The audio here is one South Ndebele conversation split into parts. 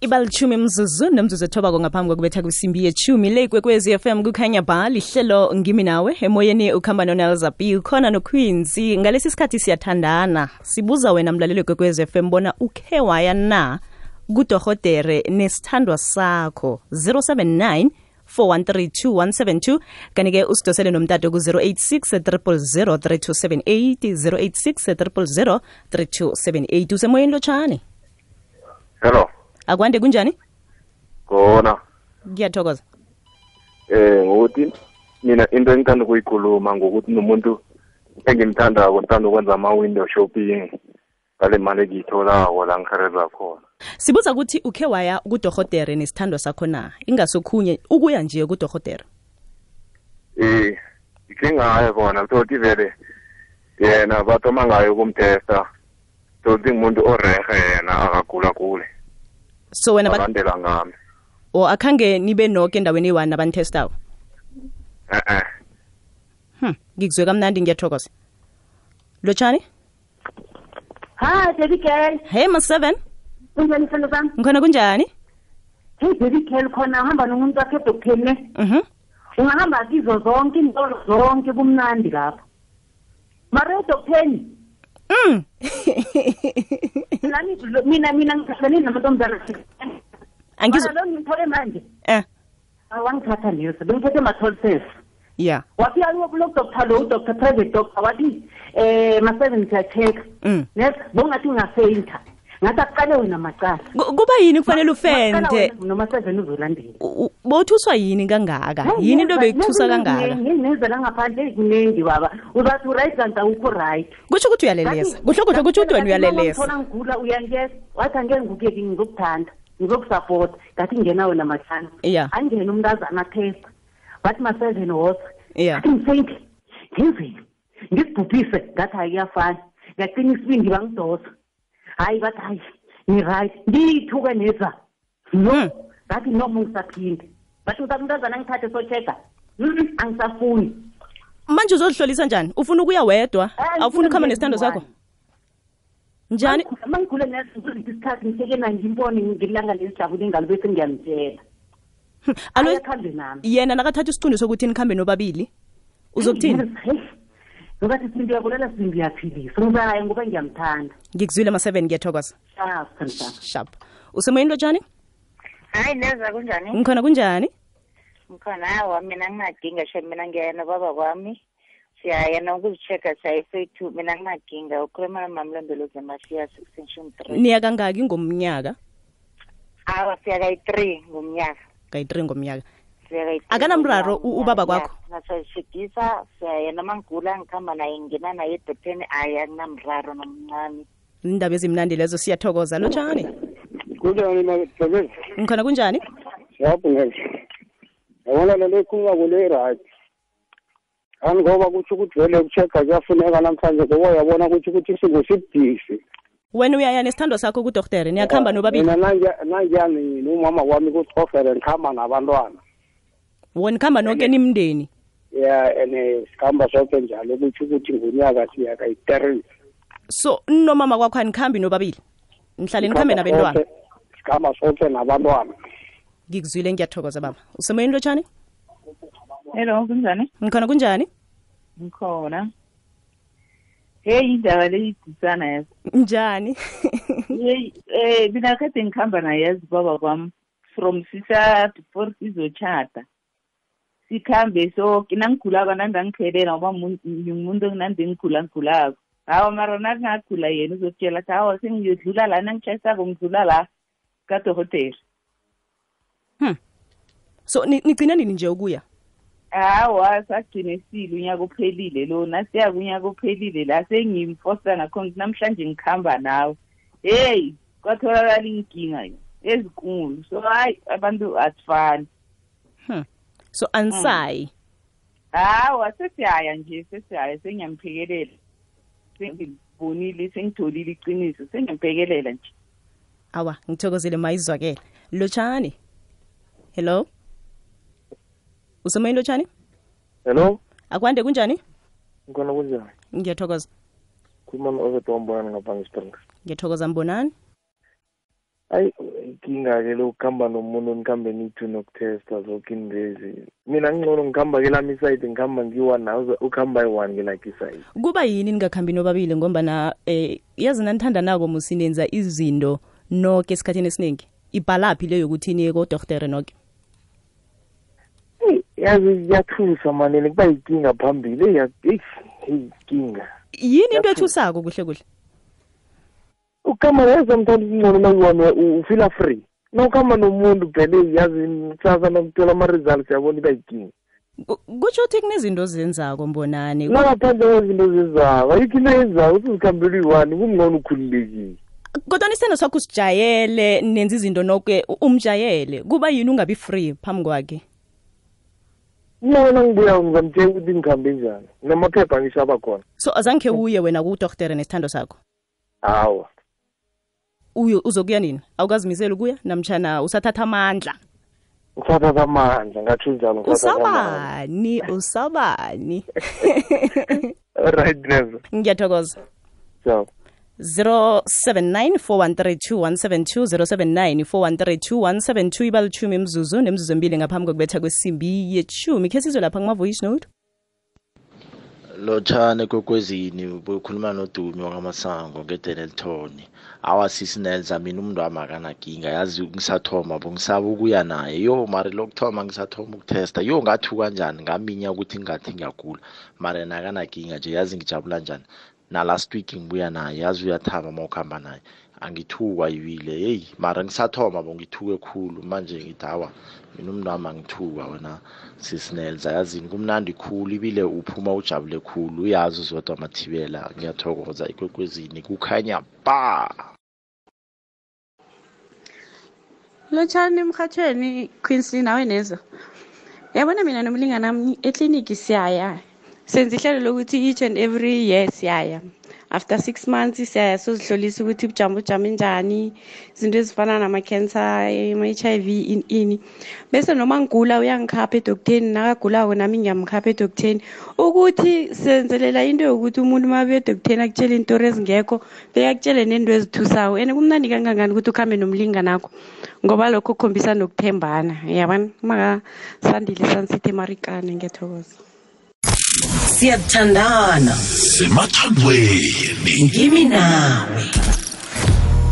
Ibalichumi mzuzu nomzuzu ethoba ngaphambi kokubetha kwisimbi yechumi le kwekwezi FM kukhanya ba lihlelo ngimi nawe emoyeni ukhamba noNelza B ukhona noQueenzy ngalesi sikhathi siyathandana sibuza wena mlaleli kwekwezi FM bona ukhe waya na kuDorhodere nesithandwa sakho 079 4132172 kanike usidosele nomtato ku 086 000 3278 086 000 3278 usemoyeni lotshani. Hello. Akwande kunjani? Khona. Ngiyathokoza. Ngokuthi mina into engithanda ukuyikhuluma ngokuthi nomuntu engimthandako ngithanda ukwenza ama-window shopping ngale mali engiyitholako la ngikhareza khona. Sibuza ukuthi ukhe waya kuDorhodere nesithandwa sakho na? Ingasokhunye ukuya nje kuDorhodere. Ikhe ngaya khona thothi vele yena bathoma ngayo kumtesta. Thothi umuntu orehe yena akagula kule. So wena bandela ngami. O akhange nibe noke endaweni eyi-1 abanitestawo? Ngikuzwe kamnandi ngiyathokoza. Lotshani? Hi, Baby Girl. Hey, Ma7. Kunjani mfana bami? Ngikhona kunjani? Hey, Baby Girl, khona uhamba nomuntu wakhe edokhene. Ungahamba kizo zonke intolo zonke kumnandi lapha. Mara edokheni. Mina ngihlangane namantombazana. Angizwa. Lo ngithole manje. Awangithatha leso. Bengithethe ma-12 Yeah. Wafika lo doctor lo doctor private doctor wathi ma-7 siya-check. Yes, bongathi ngafeinta. Ngathi aqale wena macala. Kuba yini kufanele ufente? Noma 7 uzolandela. Bothuswa yini kangaka? Yini into bekuthusa kangaka? Ngizela ngaphandle kuningi baba. Uzathi right kanti awukho right. Kusho ukuthi uyalelesa. Kuhle ukuthi wena uyalelesa. Ngithona ngigula uyangeza. Wathi angeke ngikuke ngizokuthanda. Ngizokusupport. Ngathi ngena wena mahlanu. Angene umntazana test. Wathi ma-7 was. Ngifeyinti. Ngizibhubhise ngathi ayiyafana. Ngaqina isibindi bangidosa. Hayi bathi hayi ni-right ngiyithuke neza ngathi noma ngisaphinde bathi umntazana ngithathe so-check-a angisafuni. Manje uzolihlolisa njani? Ufuna ukuya wedwa? Awufuni ukuhamba nesithando sakho? Njani? Mangigule ngiziphi isikhathi ngisekena ngimbone ngilanga lesijabule ngalo bese ngiyamtshela. Ayakhambe nami. Yena nakathatha isiqundo sokuthi nikhambe nobabili uzokuthini? Ngobathi isimbi yakulela simbi yaphilisa. Ngizaya ngoba ngiyamthanda. Ngikuzwile ma-7 ngiyathokoza. Sharp. Usemoyeni lotshani? Hayi Neza kunjani? Ngikhona kunjani? Ngikhona hawa mina ngingadinga sho mina ngiyana baba kwami. Siyayena ukuzichecka sayifethu mina ngingadinga ukhuluma namamlondolozi eMasiya 6.3. Niya kangaki ngomnyaka? Awa siya kayi-3 ngomnyaka. Kayi-3 ngomnyaka. Akanamraro ubaba kwakho? Nasashidisa siyayena mangigula ngikhamba naye ngina naye edokoteni ayanamraro nomncane. Indaba ezimnandi lezo siyathokoza lotshani? Kunjani mabezwe? Ngikhona kunjani? Siyabonga. Yabona lento ekhuluma kule right. Ngoba kuthi ukuthi vele ukuchecka kuyafuneka namhlanje ngoba uyabona ukuthi isingo sibudisi. Wena uyaya nesithando sakho kuDorhodere niyakhamba nobabili? Mina nanjani nomama wami kuDorhodere ngikhamba nabantwana. Wona khamba nonke nimndeni? Sikhamba sonke njalo ukuthi ngonyaka siya kayi-3. So nomama kwakho anikhambi nobabili? Nihlale nikhambe nabantwana? Sikhamba sonke nabantwana. Ngikuzwile ngiyathokoza baba. Usemoyeni lotshani? Hello, kunjani? Ngikhona kunjani? Ngikhona. Hey, indaba leyidisana yazi. Njani? Hey, mina kade ngikhamba naye yazi baba kwami from sisa before sizochata. Sikhambe so nangigulako nandangiphelela ngoba umuntu nandi ngigulako. Hawa mara nakungagula yena uzokutshela ukuthi hawa sengiyodlula la nangitshayisako ngidlula la kaDorhodere. So nigcina nini nje ukuya? Hawa sagcine sile unyaka uphelile lo nasiya kunyaka uphelile la sengimfosa ngakho namhlanje ngikhamba nawe. Hey kwatholakala inkinga ezinkulu so hayi abantu asifani. So ansayi. Hawa sesiyaya nje sesiyaya sengiyamphekelela. Sengibonile sengitholile iqiniso sengiyamphekelela nje. Awa ngithokozile mayizwakela. Lotshani? Hello? Usemoyeni lotshani? Hello? Akwande kunjani? Ngikhona kunjani? Ngiyathokoza. Khuluma no-Overton Mbonani ngapha ngeSprings. Ngiyathokoza Mbonani. Ayi inkinga-ke lokuhamba nomuntu nikhambe nithi nokutesta zonke indezi. Mina ngcono ngikhamba-ke lami isayidi ngikhamba ngiyi-one nawe ukuhamba yi-one ngelakhe isayidi. Kuba yini ningakhambi nobabili ngombana yazi nanithandanako musinenza izinto noke esikhathini esiningi? Ibhalaphi leyo ukuthi niye kodoktere noke? Yazi iyathusa manene kuba yinkinga phambili inkinga. Yini into ethusako kuhle kuhle? Ukuhamba yeza mthanda ingcono nayiwona ufila free. Nawukhamba nomuntu phela yazi kusasa nakuthola ama-results yabona iba yinkinga. Kutsho ukuthi kunezinto ozenzako mbonani? Nangaphandle kwezinto zenzako ayikho into yenzako usizikhambela uyi-one kungcono ukhululekile. Kodwa isithando sakho usijayele nenza izinto noke umjayele kuba yini ungabi free phambi kwakhe? Mina ngibuya ngizamtshela ukuthi ngikhambe njani namaphepha ngishaba khona. So azange uye wena kudoktere nesithando sakho? Hawa. Uzokuya nini? Awukazimisela ukuya namtjana usathatha amandla? Usathatha amandla ngathi njalo. Usabani? Right never. Ngiyathokoza. Ciao. 079 4132172 ibalitshumi imzuzu nemzuzu embili ngaphambi kokubetha kwesimbi yetshumi. Khe sizwe lapha kuma-voice note. Lotshane Kwekwezini bukhuluma noDumi wakamasango ngeDenelton. Awasisi Nelza mina umuntu wami akanakinga yazi ngisathoma ngisaba ukuya naye. Yo mari lokuthoma ngisathoma ukutesta. Yo ngathu kanjani ngaminya ukuthi ngathi ngiyagula. Mari nakanakinga nje yazi ngijabula njani. Na last week ngibuya naye yazi uyathaba mawukhamba naye. Angithukwa ibile hey mara ngisathoma ngithuke khulu manje ngithawa mina umuntu wami angithuka wena sisinelza yazi kumnandi khulu ibile uphuma ujabule khulu uyazi uzodwa amathibela ngiyathokoza Ikwekwezini kukhanya ba Lotshani emhathweni Queensley nawe nezo yabona mina nomlingana nami eclinic siyaya senze ihlelo lokuthi each and every year siyaya after 6 months siyaya sozihlolisa ukuthi ubujamo njani izinto ezifana nama-cancer ama-HIV ini bese noma ngigula uyangikhapha edoktheni nakagulako nami ngiyamkhapha edoktheni ukuthi senzelela into yokuthi umuntu uma abuya edoktheni akutshele iintori ezingekho bekakutshele nento ezithusayo and kumnandi kangangani ukuthi ukhambe nomlinganakho ngoba lokho kukhombisa nokuthembana yabona makasandile sansithe emarikane ngiyathokoza. Siyathandana semathandweni ngimi nawe.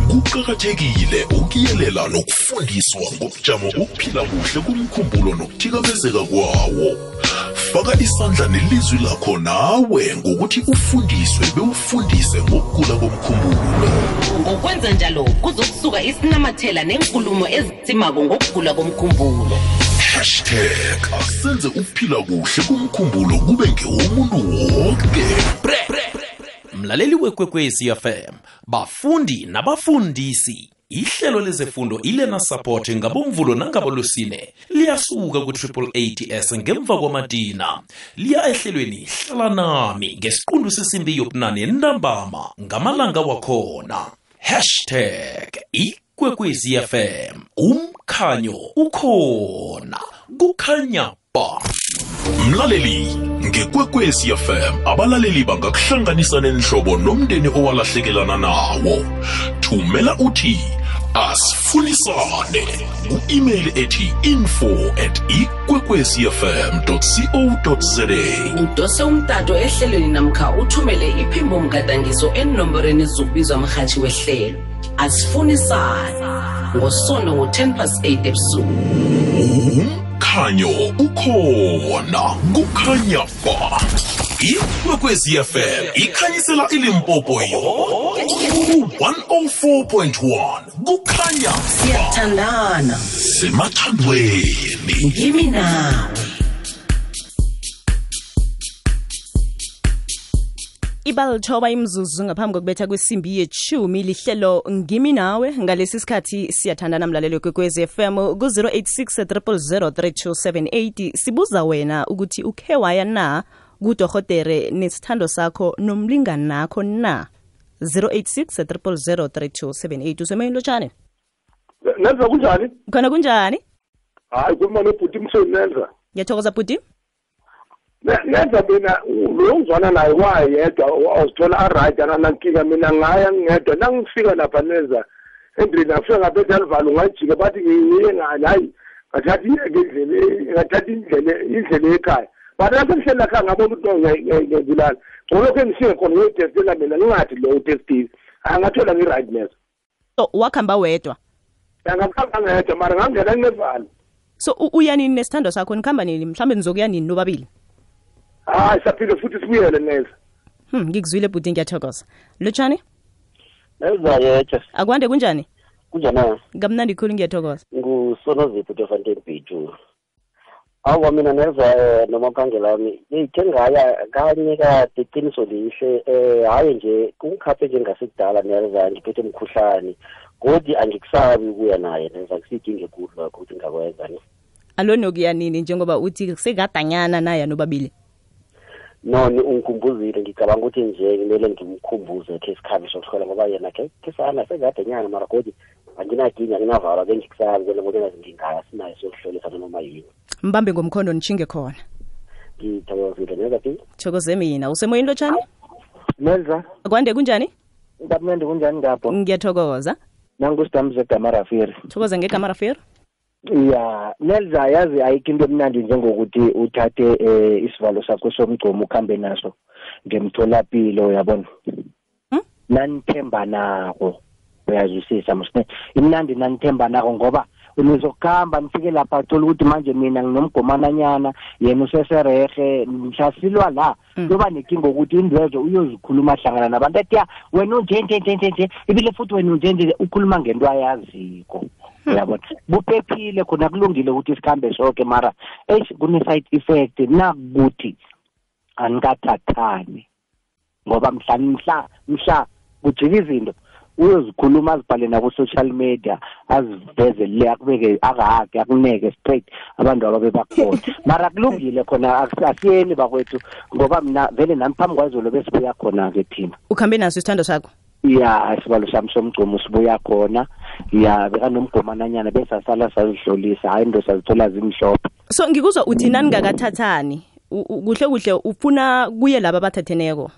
Kuqakathekile ukuyelela nokufundiswa ngobujamo bokuphila kuhle kumkhumbulo nokuthikamezeka kwawo. Faka isandla nelizwi lakho nawe ngokuthi ufundiswe bewufundise ngokugula komkhumbulo. Ngokwenza njalo kuzokusuka isinamathela nenkulumo ezitsimako ngokugula komkhumbulo. #asenze ukuphila kuhle kumkhumbulo kube ngewomuntu wonke. Mlaleli weKwekwezi FM, bafundi nabafundisi, ihlelo lezefundo iLearner Support ngabomvulo nangabolusine liyasuka ku-888 ngemva kwamadina liya ehlelweni hlala nami ngesiqundu sesimbi yobunane ntambama ngamalanga wakhona. #Ikwekwezi FM, umkhanyo ukhona kukhanya ba. Mlaleli ngeKwekwezi FM abalaleli bangakuhlanganisa nenhlobo nomndeni owalahlekelana nawo. Thumela uthi asifunisane ku-email ethi info@ikwekwezifm.co.za. Udose umtato ehlelweni namkha uthumele iphimbo mgadangiso enomborweni zokubizwa mhathi wehlelo. Asifunisane ngosono ngo-8:10 ebusuku. Umkhanyo ukhona kukhanya ba. Ikwekwezi FM ikhanyisela iLimpopo yonke 104.1 kukhanya ba. Siyathandana semathandweni ngimi nawe. Ibalithoba imzuzu ngaphambi kokubetha kwesimbi yetshumi lihlelo ngimi nawe ngalesi sikhathi siyathandana mlalelo Kwekwezi FM ku-086 000 3278 sibuza wena ukuthi ukhe waya na kudorhotere nesithando sakho nomlingani nakho na 086 000 3278 usemayini lotshane Nenza kunjani? Khona kunjani? Hayi kuma nobhuti msweni Nenza. Ngiyathokoza bhuti. Nenza mina lo ngizwana naye wayedwa awuzithola aright nankinga mina ngaya ngedwa nangifika lapha Nenza endlini afika ngaphethe alivalo ngajika bathi ngiye ngani hayi ngathatha indlela ekhaya but lapho ngihleli ekhaya ngabona ukuthi ngiyazilala ngolokhu engishike khona ngiyotestela mina ngingathi lo utestile angathola ngi-rightness. So wakhamba wedwa? Angakhamba ngedwa mara ngangena nginevalo. So uyanini nesithando sakho nikhamba nini mhlambe nizokuya nini nobabili? Hayi saphile futhi sibuyele neza. Ngikuzwile bhuti ngiyathokoza. Lotshani? Ezayethe. Akwande kunjani? Kunjani? Ngamnandi khulu ngiyathokoza. Ngusonozipho Fontaine Beach. Awu mina neza noma khangela wami ngithe ngaya kanye kade iqiniso lihle hayi nje kungikhaphe nje ngasekudala neza ngiphethe umkhuhlane kodwa angikusabi ukuya naye neza kusidinge kuhle lokho ukuthi ngakwenza ni. Alone okuya nini njengoba uthi sekadanyana naye nobabili? No ungikhumbuzile ngicabanga ukuthi nje kumele ngimkhumbuze ke isikhabi sokuthola ngoba yena ke sana sekadanyana mara kodwa anginakinga nginavala bengikusabi kwena ngoba ngingaya sinayo sokuhlolisa noma yini. Mbambe ngomkhondo nichinge khona. Ngithokozile neza phi? Thokoze mina. Usemoyini Lotshani? Nelza. Akwande kunjani? Ngaphambi kunjani ngapho? Ngiyathokoza. Nangusidamze Gamarafiri. Thokoza ngeGamarafiri? Ya, Nelza yazi ayikho into emnandi njengokuthi uthathe isivalo sakho somgcomo ukhambe naso ngemtholapilo yabona. Nanithemba nako. Uyazwisisa msine. Imnandi nanithemba nako ngoba unizokuhamba nifike lapha uthola ukuthi manje mina nginomgomananyana yena useserehe mhlasilwa la kuba nenkinga ukuthi indwezo uyozikhuluma hlangana nabantu ethi wena unje ibile futhi wena unje ukhuluma ngento ayaziko uyabona buphephile khona kulungile ukuthi isikhambe sonke mara kune side effect nakuthi anikathathani ngoba mhla kujika izinto uyozikhuluma azibhale na ku social media aziveze le akubeke akahake akuneke straight abantu ababe bakhona mara kulungile khona akusiyeni bakwethu ngoba mina vele nami phambi kwazolo besibuya khona ke thina. Ukhambe naso isithando sakho? Ya isibalo sami somgcomo sibuya khona ya beka nomgomananyana bese asala sazihlolisa hayi ndo sazithola zimhlophe. So ngikuzwa uthi nani ngakathathani kuhle ufuna kuye laba bathatheneko?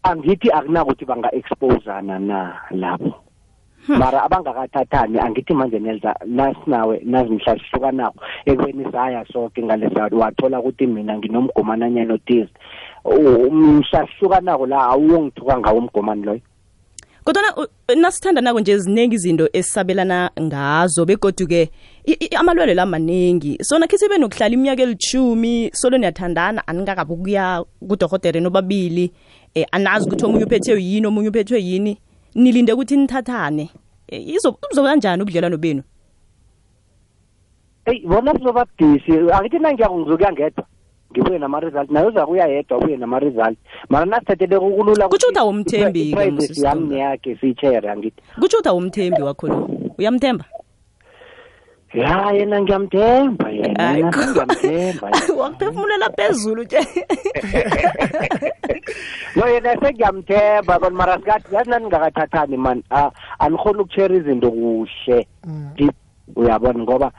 Angithi akunakuthi banga-exposana na lapho mara abangakathathani angithi manje Nelza nasinawe nazimhla sihlukanako ekweni saya sonke ngalesa wathola ukuthi mina nginomgomananyana othize umhla sihlukanako la awuyongithuka ngawo umgomani loyo. Kodwa nasithanda nako nje ziningi izinto esisabelana ngazo begoduke amalwele la maningi so nakhe sibe nokuhlala iminyaka eli10 solo niyathandana aningakabukuya kuDokotela nobabili anazi ukuthi omunye uphethwe yini omunye uphethwe yini nilinde ukuthi nithathane izoba kanjani ubudlelwano benu? Bona sizoba busy akithi nangiyakuzokuya ngedwa ngibuye nama result nayo zakuya yedwa ubuye nama result mara nasithathele ukulula kuthi uthi awumthembi ke msisi yami yakhe sichere angithi kuthi uthi awumthembi wakho lo uyamthemba? Ya yena ngiyamthemba yena ngiyamthemba wakuphefumulela phezulu nje. No yena sengiyamthemba kodwa mara sikathi yazi ningakathathani man anikhona ukushare izinto kuhle deep uyabona ngoba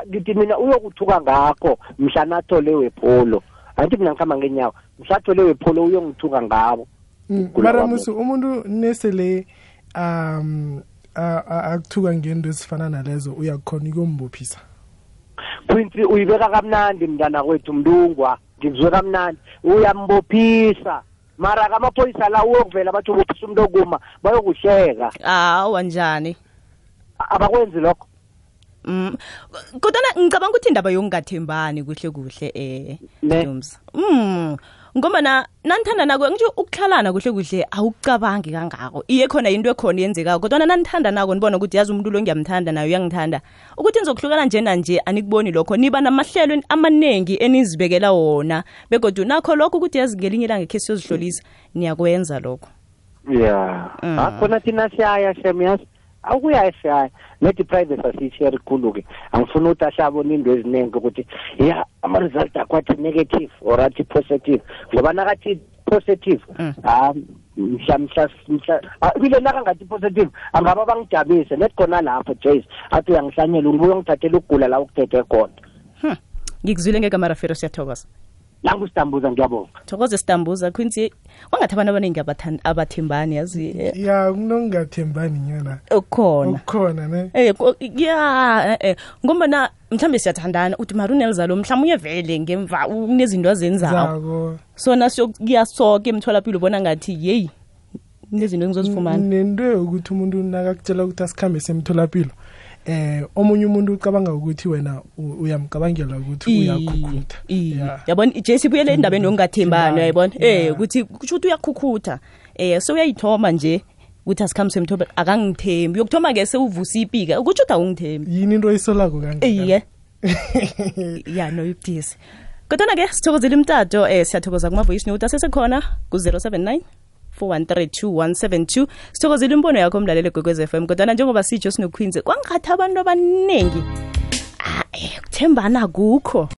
ngithi mina uyokuthuka ngakho mhla nathole wepholo angithi mina ngikhamba ngenyawo mhla nathole wepholo uyongithuka ngabo. Mara musu umuntu nesele akuthuka ngento ezifana nalezo uyakhona ukumbophisa. Quincy uyibeka kamnandi mntana kwethu mndungwa ngizwe kamnandi uyambophisa mara kamaphoyisa la uyokuvela bathi ubophisa umuntu okuma bayokuhleka. Wanjani? Abakwenzi lokho. Kodwa ngicabanga ukuthi indaba yokungathembani kuhle Dums. Ngoba nanithanda nako ngisho ukuhlalana kuhle awucabangi kangako iye khona into ekhona yenzeka kodwa nanithanda nako nibona ukuthi yazi umuntu lo ngiyamthanda nayo uyangithanda ukuthi nizokuhlukana nje anikuboni lokho niba namahlelo amanengi enizibekela wona begodwa nakho lokho ukuthi yazi ngelinye ilanga ekhe siyozihlolisa niyakwenza lokho. Yeah akhona thina siyaya shemiyasi akuya esiyaya nethi private asishare khulu-ke angifuna ukuthi ashabona into eziningi ukuthi ya ama-result akwathi negative or athi positive ngoba nakathi positive mhla bile nakangathi positive angaba bangijabise nethi khona lapho Jace athi uyangihlanyela ubuye ungithathela ukugula la ukuthethe khona. Ngikuzwile ngeGamarafiri siyathokoza. nangusitambuza ngiyabonga thokoze sitambuza Quincy wangathi abantu abaningi abathembani yazi ya kunongathembani nyana ukhona ne ngoba mhlambe siyathandana uthi marunelza lo mhlawumnye vele ngemva unezinto azenzayo so nasiyokuyasoke emtholapilo ubona ngathi hey nezinto engizozifumana nento ukuthi umuntu nakakutshela ukuthi asikhambe semtholapilo omunye umuntu ucabanga ukuthi wena uyamcabangela ukuthi uyakhukutha yabona iJC buyele endabeni ongathembana yayibona ukuthi kusho ukuthi uyakhukutha so uyayithoma nje ukuthi asikhambe semtholapilo akangithembi yokuthoma ke sewuvusa ipika ukuthi uthi awungithembi yini into oyisolako kangaka ya no yibhisi kodwa ke sithokozela imtato siyathokoza kuma voice note asesekhona ku 079 4132172 sithokozela imbono yakho umlaleli Gqwezi FM kodwa njengoba sitsho sinoQueenzi kwangathi abantu abaningi ukuthembana kukho